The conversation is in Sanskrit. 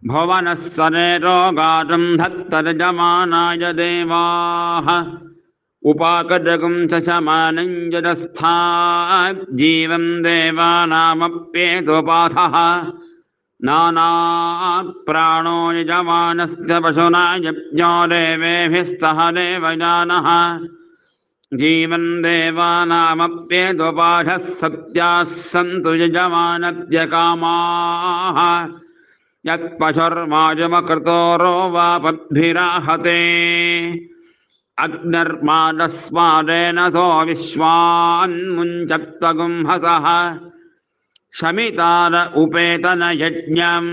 भुवनस्तरे रोगाटं धत्तर्जमानाय देवाः उपाकटकं शशमानं जडस्था जीवं देवानामप्येतोपाथः नानाप्राणो यजमानस्य पशुना यज्ञो देवेभिः सह देवयानः जीवन् देवानामप्येतोपाधः सत्याः सन्तु यजमानद्यकामाः यत्पशुर्माजमकृतोरो वा पद्भिराहते अग्निर्मादस्मादेन सो विश्वान्मुञ्चत्वगुंहसः शमितार उपेतन यज्ञम्